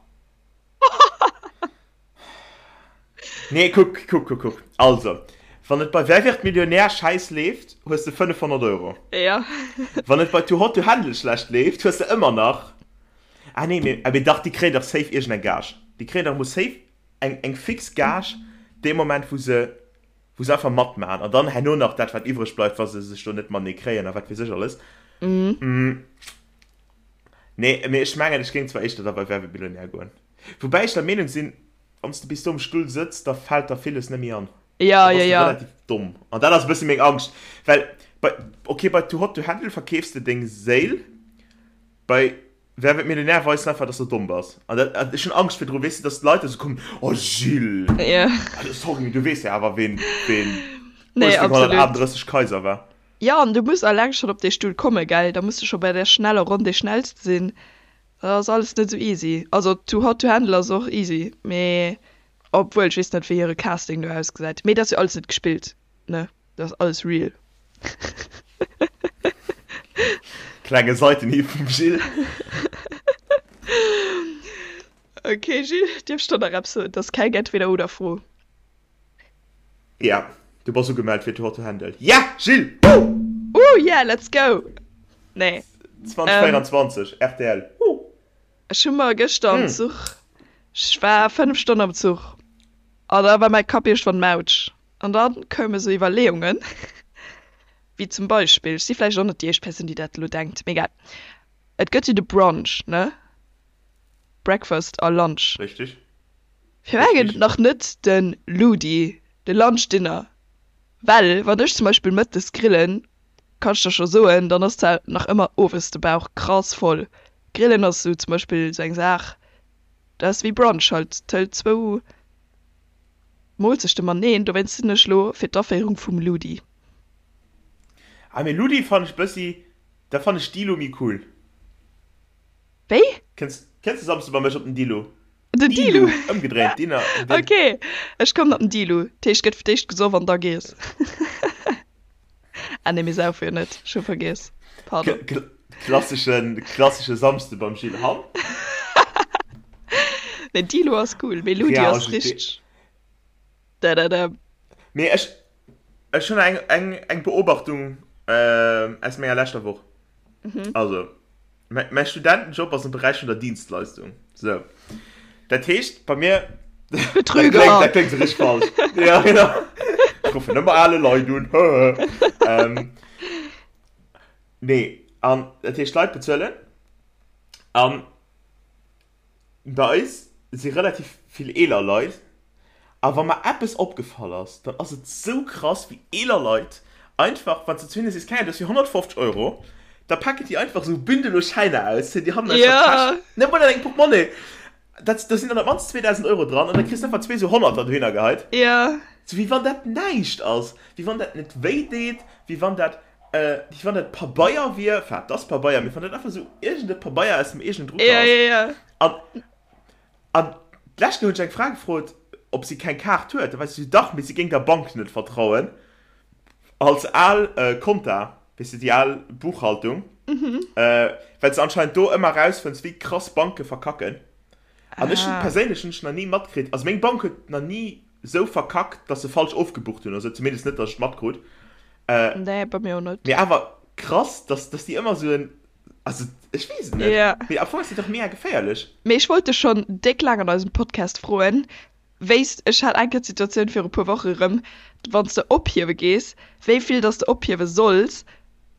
S3: Nee, kuck, kuck, kuck, kuck. Also, wann et bei Wer wird Millionär schäiss leeft, hues de 500 Euro.
S2: Ja.
S3: Wann et bei Too Hot to Handle schlecht leeft, hues de ëmmer nach. Ah nee, mee, mee dach, déi kréien dach safe iergendeng Gage. Déi kréien dach emol safe eng, eng fix Gage dee Moment, wou se, wou se einfach matmaachen. An dann herno nach dat, wat iwwreg bleift, wa se sech do net matenee kréien a wat weess ech alles. Mm. Nee, mee ech mengen, ech géing zwar éischter da bei Wer wird Millionär goen. Woubäi ech der Meenung sinn, wann s de bis do um Stull sëtz, da fält der villes net méi an.
S2: Ja, ja, ja.
S3: Relativ domm. An dat ass e bësse meng Angscht. Well bei, okay, bei Too Hot to Handle verkeefs de deng Séil, bei Wer wird Millionär weis de einfach, dass de domm bass. An dat, an ech hunn Angscht virdru, weess de, dass d'Leit da sou kommen, Oh Gilles!
S2: Ja.
S3: Also sorry, mee du weess jo awer, ween, ween
S2: Nee, absolut.
S3: 1838 Kaiser war.
S2: Jo, an du muss alleng schonn op dee Stull kommen, gell? Da muss de scho bei där schneller Ronn dee Schnellste sinn. Dat ass alles net esou easy. Also Too Hot to Handle ass och easy, mee obwuel, ech weess net wéi hire Casting do ausgesäit. Mee dat ass jo alles net gespillt, ne? Dat ass alles real.
S3: Klenge Seitenhieb vum Gilles.
S2: Ok Gilles, dierf ech der nach eppes soen? Dat ass keng Entweder-oder-Fro.
S3: Ja, du bass ugemellt fir Too Hot to Handle. Yeah, Gilles! Woo!
S2: Ooh yeah, let's go! Nee.
S3: 2024, rtl. Woo!
S2: Ech hu mer gëschter am Zuch, ech war 5 Stonnen am Zuch an da war mäi Kapp iergendwann mautsch an da koume sou Iwwerleeungen, wéi zum Beispill, ech si vläicht och net déi éischt Persoun, déi dat elo denkt, mee egal, et gëtt jo de Brunch, ne? Breakfast a Lunch.
S3: Richtig.
S2: Firwat gëtt et nach net de Ludi, de Lunch Dinner? Well wann ech zum Beispill mëttes grillen, kann ech der scho soen, dann ass zwar nach ëmmer owes de Bauch krass voll. Grillen ass sou zum Beispill sou eng Saach, dat ass wéi Brunch halt, tëlt zwou Moolzechte mateneen. Dowéinst sinn ech lo fir d'Aféierung vum Ludi.
S3: Ah mee Ludi fannen ech bëssi, da fannen ech Dilo méi cool.
S2: Wéi?
S3: Kënns kënns de Samsde bei mech op den Dilo?
S2: Den Dilu?
S3: Ëmgedréint, Dinner.
S2: Den. Ok, ech kommen op den Dilu. Dat heescht, gëtt fir d'éischt gesoff an da gees. Ah nee, mir saufe jo net, ech hu vergiess. Pardon.
S3: Klasseschen, klassesche Samsde beim Gilles Hamm.
S2: Nee, Dilo ass cool, mee Ludi ass richteg. Da da da.
S3: Mee ech, ech hunn eng, eng, eng Beobachtung aus menger leschter Woch. Also, mäi Studentenjob ass am Beräich vun der Dienstleistung. Sou. Dat heescht, bei mir.
S2: Betrüger!
S3: Dat kléngt, dat kléngt sou richteg falsch. Ja, genau. Ech ruffen ëmmer ale Leit un. Nee, an dat heescht, d'Leit bezuelen. An Bei eis si relativ vill eeler Leit a wa mer eppes opgefall ass, dann ass et sou krass wéi eeler Leit einfach, wann s de zu hinne sees, keng Ahnung, dat ass fir 150 Euro, da packen déi einfach sou Bündel u Schäiner aus, zéien déi hannen aus der Täsch, net mol an engem Portemonnaie, dat, do sinn dann op d'mannst 2.000 Euro dran an da kriss de einfach zwee sou Honnerter dohinner geheit, sou wéi wann dat näischt ass, wéi wann dat net wéi deet, wéi wann dat. Wéi wann dat Pabeier wier, enfin, et ass Pabeier, mee wann dat einfach esou iergend e Pabeier aus dem eegenen Drucker
S2: ass. Ja, ja, ja.
S3: An, an d'lescht Kéier hunn ech eng Fra gefrot, ob si keng Kaart huet. Da war si esou, dach, mee si géing der Bank net vertrauen. Als al Konta, weess de, déi al Buchhaltung, well s de anscheinend do ëmmer erausfënns, wéi krass Banke verkacken. An ech hunn perséinlech hunn ech nach ni matkritt, also meng Bank huet nach ni esou verkackt, dass se falsch ofgebucht hunn oder sou, zumindest net, dass ech et matkrut.
S2: Nee, bei mir och net.
S3: Mee awer krass, dass, dass déi ëmmer esou en, also ech weess et net.
S2: Ja.
S3: Mee am Fong ass dat dach mega geféierlech.
S2: Mee ech wollt dech schonn déck laang an eisem Podcast froen, wéi s, ech hat eng Kéier d'Situatioun viru puer Woche erëm, wann s de ophiewe gees, wéi vill dass de ophiewe solls,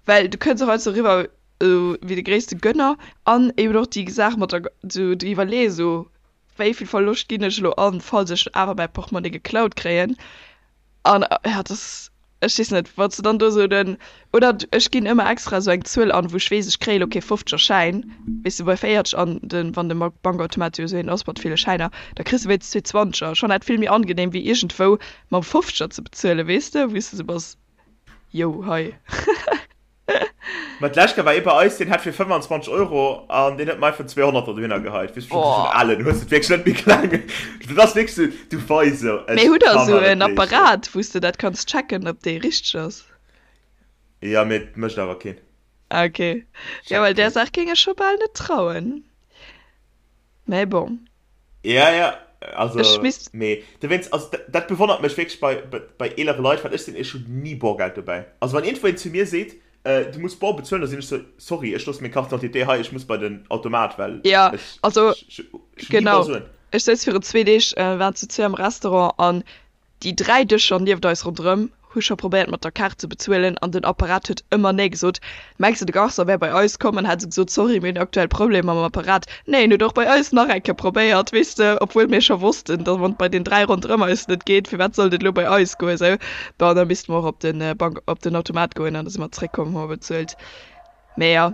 S2: well du kënns och heiansdo eriwwer esou wéi de gréisste Gönner an eben och déi Saach mat der, esou déi Iwwerleeë esou, wéi vill Verloscht ginn ech elo an, falls ech awer mäi Portmonnie geklaut kréien. An ja, das, ech weess net, wann s de dann do esou den, oder ech ginn ëmmer extra esou eng Zuel an, wou ech weess, ech kréie lo kee fofzeger Schäin, weess de, bei 40 an den, wann de Bankautomat jo esou een ass mat ville Schäiner, da kriss de wéinstens zwee Zwanzeger. Schonn dat vill méi angenehm wéi iergendwou mam Fofzeger ze bezuelen, weess de, wou s de esou bass, yo, hei.
S3: Ma d'lescht Kéier war ee bei eis, deen hat fir 25 Euro an deen huet mer einfach 200 der dohinner geheit. Weess du,
S2: Oh.
S3: schon alen, hues et wierklech net méi kleng. Dat ass wierklech sou, du weis sou, ech
S2: Mee hutt der
S3: kann
S2: esou
S3: mer net
S2: en
S3: leeschten.
S2: Apparat, wou s de dat kanns checken, ob dee richteg ass?
S3: Ja, mee et mécht awer keen.
S2: Ah, okay. Ja,
S3: Checkt
S2: well där
S3: keen.
S2: Saach géing ech scho bal net trauen. Mee bon.
S3: Ja, ja,
S2: Ech
S3: also,
S2: misst.
S3: mee dowéinst, also dat, dat bewonnert mech wierklech bei, bei, bei eelere Leit, well ech sinn, ech hunn ni Borgeld dobäi. Also wann iergendwou een zu mir seet, äh, du muss bor bezuelen, da sinn ech sou, sorry, ech loosse meng Carte d'identité hei, ech muss bei den Automat, well
S2: Ja,
S3: ech,
S2: also
S3: ech, ech, ech hunn ni
S2: genau.
S3: Borsuen.
S2: Ech souz virun zwee Deeg, äh, waren zu zwee am Restaurant an Déi 3 Dëscher nieft eis ronderëm hu scho probéiert mat der Kaart ze bezuelen an den Apparat huet ëmmer nee gesot. Mengs de de Garçon wär bei eis komm an hätt esou gesot, sorry mir hunn aktuell Problemer mam Apparat. Nee, en huet och bei eis nach eng Kéier probéiert, weess de, obwuel mir scho wossten, datt wann et bei den 3 ronderëm eis net geet, firwat sollt et elo bei eis goen esou. Bon, da misste mer och op den Bank, op den Automat goen an da si mer zeréckkomm, hu mer bezuelt. Mee jo,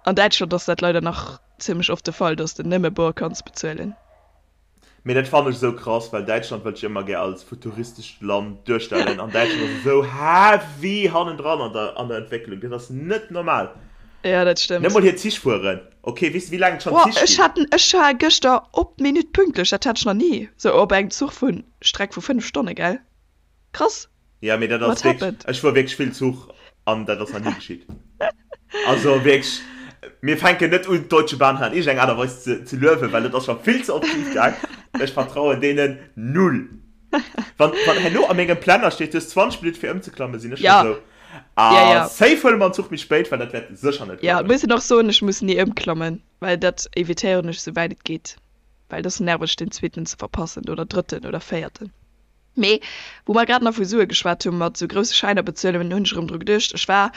S2: an Däitschland ass dat leider nach zimmlech oft de Fall, datt s de nëmme bor kanns bezuelen.
S3: Mee dat fannen ech esou krass, well Däitschland wëllt sech ëmmer gär als futuristescht Land duerstellen an Däitschland ass esou heavy hannendran an der an der Entwécklung, dat ass net normal.
S2: Ja, dat
S3: Net
S2: stëmmt.
S3: mol hir Zich fueren, ok, weess de wéi laang et schonn
S2: Boah,
S3: Zich
S2: ech
S3: ginn?
S2: hat ech war gëschter op d'Minutt pünktlech, dat hat ech nach ni, sou op engem Zuch vun Streck vu 5 Stonne, gell? Krass!
S3: Ja, mee dat
S2: What
S3: ass wierklech,
S2: happened?
S3: ech fuer wierklech vill Zuch an dat ass nach ni geschitt. Also wierklech, mir fänken net un d'Deutsche Bahn hei an iergendeng Aart a Weis ze ze luewen, well dat ass scho vill ze oft schif gaang. Ech vertrauen deenen null. Wann wann herno a mengem Planner steet, du hues 20 Minutte fir ëmzeklammen, sinn ech scho
S2: Ja,
S3: sou,
S2: ja,
S3: ah
S2: ja.
S3: safe huele mer en Zuch méi spéit, well dat wäert sécher net
S2: Ja,
S3: klappen.
S2: muss een och soen, ech muss ni ëmklammen, well dat evitéieren ech souwäit et geet, well et ass nerveg den zweeten ze verpassen oder drëtten oder véierten. Mee wou mer grad nach vu Sue geschwat hu mat sou grousse Schäiner bezuelen, hunn ech erëm dru geduecht, ech war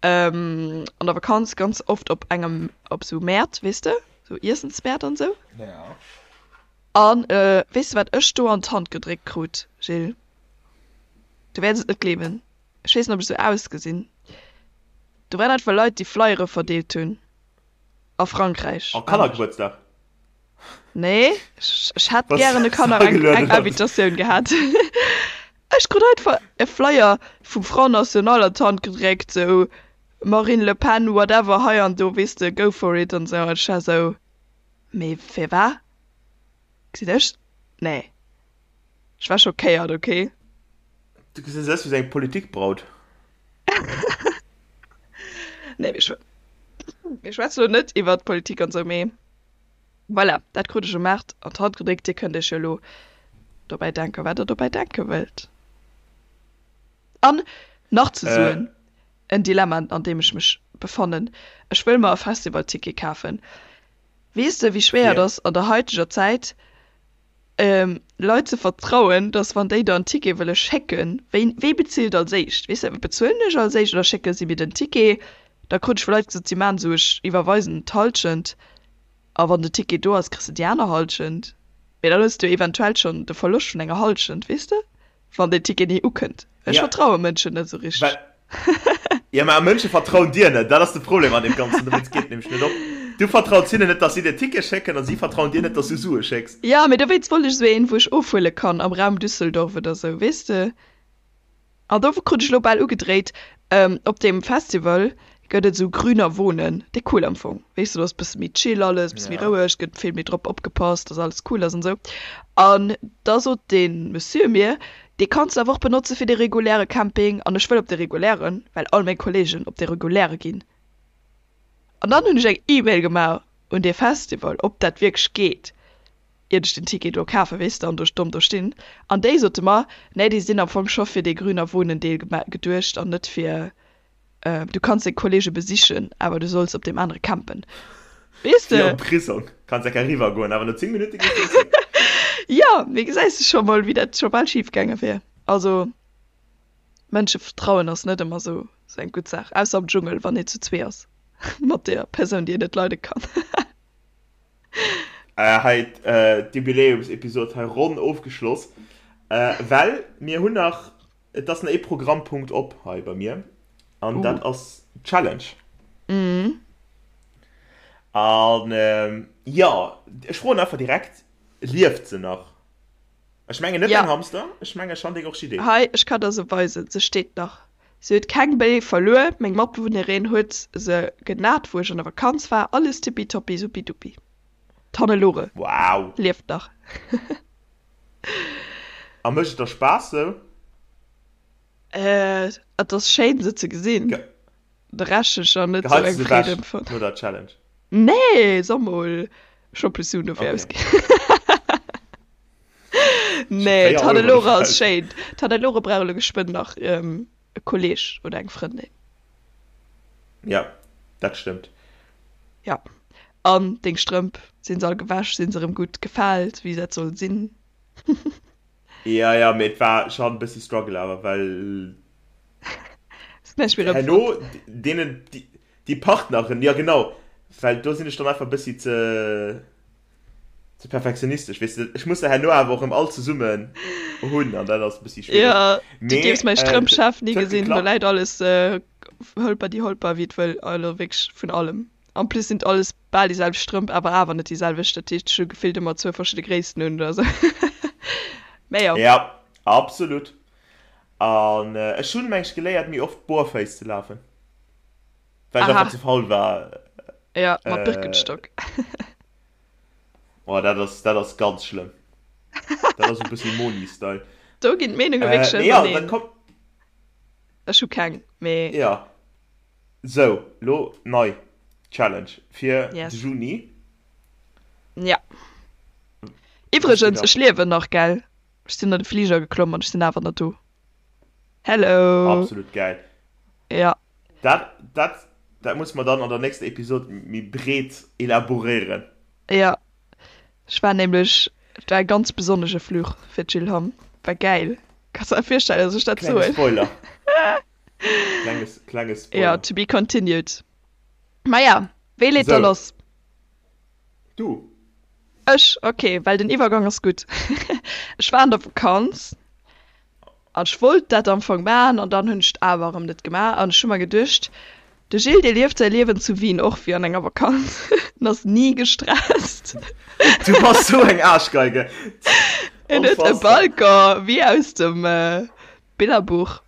S2: an der Vakanz ganz oft op engem, op sou Mäert, weess de, sou Iessensmäert an sou. An weess de wat ech do an d'Hand gedréckt krut, Gilles? Du wäerts et net gleewen, ech weess net ob ech sou ausgesinn, do waren einfach Leit déi Flyere verdeelt hunn a Frankräich.
S3: Oh, Kannergebuertsdag?
S2: Nee, ech hätt gären de Kanner eng Invitatioun gehat. Ech krut einfach e Flyer vum Front National an d'Hand gedréckt, sou Marine Le Pen, whatever, hei an do, weess de, go for it an sou. An ech war sou, mee firwat? Gesinn ech? Nee, ech war schockéiert, okay.
S3: Du gesäis aus wéi sou eng Politikbraut.
S2: Nee, mir schwätzen elo net iwwert Politik an sou, mee. Voilà, dat krut ech um Maart an d'Hand gedréckt. Dir kënnt iech jo elo dobäi denken, wat der dobäi denke wëllt. An nach ze soen, en Dilemma, an deem ech mech befannen, Ech wëll mer e Festivalticket kafen. Weess de, wéi schwéier et ass an der haiteger Zäit, Leit ze vertrauen, dass wann déi der en Ticket wëlle schécken, wéi, wee bezilt als éischt? Weess de, bezuelen ech als éischt oder schécke si mir den Ticket? Da krut ech vu Leit gesot, si maachen esou, ech iwwerweisen d'Hallschent a wann de Ticket do ass, kriss de déi aner Hallschent. Mee dann hues de jo eventuell schonn de Verloscht vun enger Hallschent, weess de? Wann deen Ticket ni ukënnt. Ech vertraue Mënschen net esou richteg.
S3: Jo, mä Mënsche vertrauen dir net. Dat ass de Problem an deem Ganzen. Dowéinst geet et nämlech net op. Du vertraus hinnen net, dass si dir Tickete schécken, a si vertrauen dir net, dass du Sue schécks.
S2: Jo, mee dowéinst wollt ech esou een, wou ech ofhuele kann am Raum Düsseldorf oder esou, weess de. An do krut ech elo bal ugedréit, op deem Festival gëtt et esou Grüner Wohnen, dee cool am Fong, weess de, do ass bësse méi chill alles, bësse méi roueg, gëtt vill méi drop opgepasst, dass alles cool ass an esou. An da sot dee Monsieur mir, dee kanns de awer och benotze fir de reguläre Camping an ech wëll op de regulären, well all meng Kollegen op de reguläre ginn. An dann hunn ech eng E-Mail gemaach un dee Festival, ob dat wierklech geet. iert ech den Ticket do kafen, weess de, an do domm do stinn. An déi sote mer, nee, déi sinn am Fong scho fir dee Grüner Wohnen Deel geduecht an net fir, du kanns deng Kollege besichen, awer du solls op deem anere campen. Weess
S3: Wéi
S2: de?
S3: am Prisong, kanns enker eriwwer goen, awer no 10 Minutte gees du zréck.
S2: Jo, mee gesäis de scho mol, wéi dat scho bal schif gaange wier. Also, Mënsche vertrauen ass net ëmmer sou eng gutt Saach, ausser am Dschungel, wann een zu zwee ass mat der Persoun, déi een net leide kann.
S3: Hei d'Jubiläumsepisod hei ronn ofgeschloss, well mir hunn nach, et ass nach ee Programmpunkt op hei bei mir an dat ass d'Challenge. An jo, ech froen einfach direkt, lieft se nach? Ech mengen net däin Hamster, ech menge schonn deng Orchidee.
S2: Hei, ech kann der se weisen, se steet nach. Se huet keng Béi verluer, meng Matbewunnerin huet se genat wou ech an der Vakanz war, alles tippitoppi suppiduppi. D'Hannelore
S3: Wow!
S2: lieft nach.
S3: A mécht et der Spaass sou?
S2: Et ass schéin se ze gesinn, de Rescht hunn ech nach net sou
S3: Geheits
S2: eng
S3: du se
S2: Freed
S3: ewech
S2: empfonnt.
S3: no der Challenge?
S2: Nee, so mol, ech hu plus Suen dofir
S3: Okay.
S2: ausginn.
S3: Ech hu
S2: Nee,
S3: 4 Euro
S2: d'Hannelore
S3: dofir
S2: ass
S3: ausginn.
S2: schéin. D'Hannelore brauch elo geschwënn nach e Kolleg oder eng Frëndin.
S3: Ja, dat stëmmt.
S2: Ja, an deng Strëmp, sinn se all gewäsch, sinn se erëm gutt gefaalt, wéi dat soll sinn?
S3: Ja, ja, mee et war schon e bëssi Struggle awer, well
S2: Ass näischt méi erëm
S3: herno
S2: fonnt.
S3: deenen déi Partneren, ja genau, well do sinn ech dann einfach e bëssi ze ze perfektionistesch, weess de, ech muss se herno awer och erëm all zesummen hunn an dat ass e bëssi schwiereg.
S2: Ja, du
S3: Mee
S2: dierfs mäi
S3: et
S2: Strëmpchef ni
S3: huet
S2: gesinn, do
S3: geklappt.
S2: läit alles hëlper déi holper wéi et wëll, also wierklech vun allem. En plus sinn et alles bal déi selwecht Strëmp, awer awer net déi selwecht. Dat heescht, ech hu gefillt ëmmer zwou verschidde Gréissten un oder sou. Mä jo.
S3: Ja, absolut. An ech hunn, meng ech, geléiert méi oft barefouss ze lafen, well ech
S2: Aha.
S3: einfach ze faul war.
S2: Ja, mat Birkenstock.
S3: Oh, dat ass, dat ass ganz schlëmm. Dat ass e bëssi Moni-Style.
S2: Do ginn d'Meenunge wierklech
S3: Mee jo, dat
S2: auserneen.
S3: kommt.
S2: Ech hu keng, mee.
S3: Ja. Sou, lo nei Challenge fir de
S2: Yes.
S3: Juni.
S2: Ja.
S3: Was geht
S2: Iwwregens,
S3: ab?
S2: ech liewen nach, gell? Ech sinn an de Fliger geklomm an ech sinn awer nach do. Hello!
S3: Absolut gäil.
S2: Ja.
S3: Dat, dat, dat musse mer dann an der nächster Episod méi breet elaboréieren.
S2: Ja. Ech war nämlech, et war e ganz besonnesche Fluch fir d'Jill Hamm. War gäil. Kanns der virstellen, dass ech dat
S3: Klenge
S2: soen?
S3: Spoiler. Klenge, klenge Spoiler.
S2: Ja, to be continued. Maja, wee leet da
S3: Sou.
S2: lass?
S3: Du.
S2: Ech? Ok, well den Iwwergang ass gutt. Ech war an der Vakanz an ech wollt dat am Fong maachen an dann hunn ech et awer erëm net gemaach an ech hu mer geduecht, de Gilles dee lieft säi Liewen zu Wien och wéi an enger Vakanz, en ass ni gestresst.
S3: Du bass sou eng Aarschgeige.
S2: En huet e
S3: Unfassbar.
S2: Balcon wéi aus dem Billerbuch.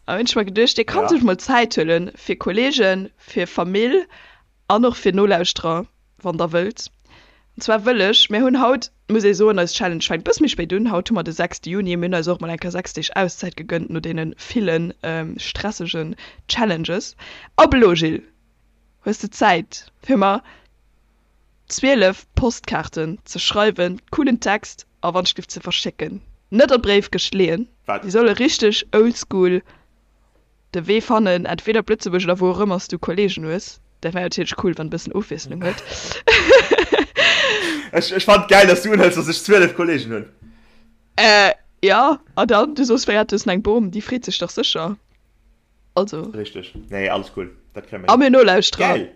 S2: An hunn ech mer geduecht, dee kann
S3: Ja.
S2: sech mol Zäit huelen fir Kollegen, fir Famill an och fir Nolauschterer, wann der wëllt. An zwar wëll ech, mir hunn haut, muss ee soen, eis Challenge fänkt bësse méi spéit un, haut hu mer de 6 Juni, mir hunn eis och mol eng Kéier 6 Deeg Auszäit gegënnt no deene ville stressegen Challenges. Ab elo, Gilles, hues de Zäit fir mer 12 Postkaarten ze schreiwen, coolen Text a Wandschrift ze verschécken. Net an d'Bréifkëscht leeën,
S3: Wat?
S2: déi solle richteg oldschool de Wee fannen, entweder op Lëtzebuerg oder wou och ëmmer s du Kollegen hues. Dat wär natierlech cool, wann e bëssen Ofwiesslung huet.
S3: Ech, ech fannen et gäil, dass du unhëls, dass ech 12 Kollegen hunn.
S2: Äh, jo, a dann, du sos wéi, du hues eng Bom, déi freet sech dach sécher. Also.
S3: Richteg. Nee, alles cool. Dat kréie mer
S2: A
S3: hin.
S2: mir Nolauschterer,
S3: Gäil!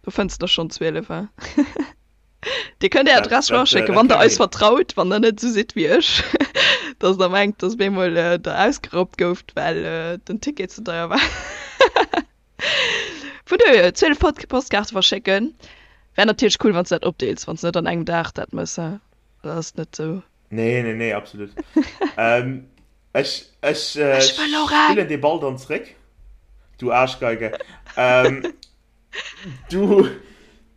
S2: do fënns de der schonn 12, hein? Dir kënnt är
S3: Dat,
S2: Adress
S3: dat,
S2: eraschécken,
S3: dat
S2: wann der
S3: kréie mer
S2: eis
S3: hin.
S2: vertraut, wann der net esou sidd wéi ech, dass der mengt, dass op eemol der ausgeraubt gouft, well den Ticket ze deier war. Vun dohier, 12 Pod Postkaarte verschécken. Wär natierlech cool, wann s de dat opdeels, wann s de net an engem Dag dat mëss, hein? Dat ass net esou.
S3: Nee, nee, nee, absolut. ähm, ech, ech, äh,
S2: Ech wëll och eng!
S3: spillen dee Ball dann zréck. Du Aarschgeige. Ähm, du,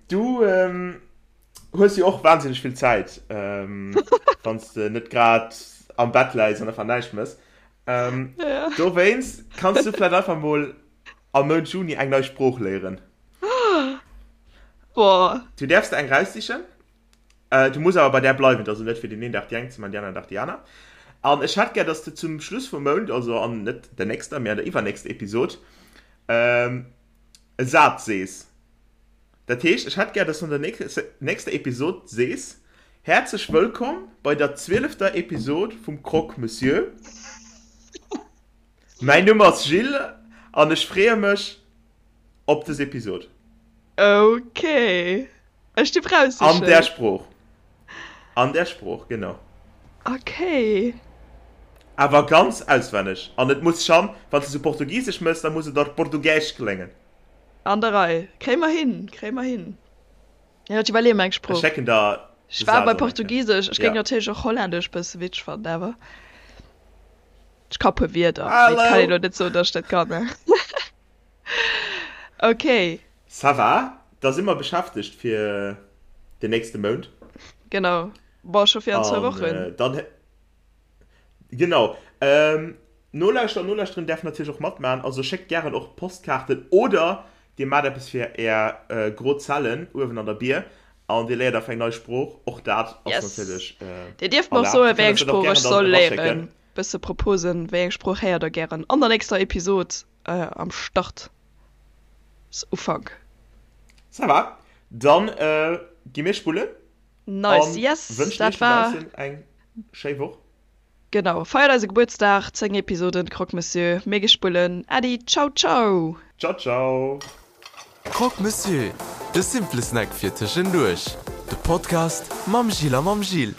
S3: du ähm, hues jo och wahnsinneg vill Zäit, ähm, wann s de net grad am Bett läis an einfach näischt mëss. Ähm,
S2: Ja.
S3: dowéinst kanns du vläicht einfach mol am Mount Juni eng nei Sprooch léieren.
S2: Boah.
S3: Du däerfs der eng raussichen. Du muss awer bei där bleiwen, et ass also net fir deen een Dag déi eng ze man, déi aner Dag déi aner. An ech hätt gär, dass de zum Schluss vum Mount, also an net der nächster, mee an der iwwernächster Episod, e Saz sees. Dat heescht, ech hätt gär, dass du an der nächster Episod sees, Häerzlech wëllkomm bei der zwielefter Episod vum Croque Monsieur. Mäin Numm ass Gilles an ech freeë mech op des Episod.
S2: Ok, ech dierf
S3: An där
S2: raussichen.
S3: Sprooch. An där Sprooch, genau.
S2: Ok.
S3: Awer ganz auswenneg. An et muss schan, wann s de sou Portugisesch mëss, da muss et och Português kléngen.
S2: An der Rei. Kréie mer hin, kréie mer hin. Jo, ech iwwerleeë mer eng
S3: Ech
S2: Sprooch.
S3: schécken der
S2: Ech
S3: de
S2: war
S3: Saz
S2: bei
S3: an eng Kéier.
S2: Portugisesch, ech géing
S3: Ja.
S2: natierlech och Hollännesch bësse witzeg fannen, awer. Ech ka puer Wierder, mee et kann een elo net soen, datt ech dat kann. Ok.
S3: Ça va, da si mer beschäftegt fir den nächste Mount.
S2: Genau, bon, scho fir an zwou Wochen.
S3: Dann, genau. Nolauschterer an Nolauschterinnen däerfen natierlech och matmaachen, also schéckt gären och Postkaarten oder dir maacht eppes fir är gro Zellen uewen an der Bier an dir léiert einfach eng nei Sprooch, och dat ass natierlech
S2: erlaabt. Dir dierft mer och soen, wéi eng Sprooch ech soll léieren. Bësse Proposen, wéi eng Sprooch héiert der gären an der nächster Episod am Start Ufank.
S3: Ça va, dann gi mir spullen.
S2: Nice, yes,
S3: dat war. Wënschen iech dobaussen eng schéi Woch.
S2: Genau, feiert eise Gebuertsdag, 10 Episoden Croque Monsieur, mir gi spullen. Äddi, ciao ciao!
S3: Ciao ciao!
S1: Croque Monsieur, de simple Snack fir tëschenduerch. De Podcast mam Gilles a mam Gilles.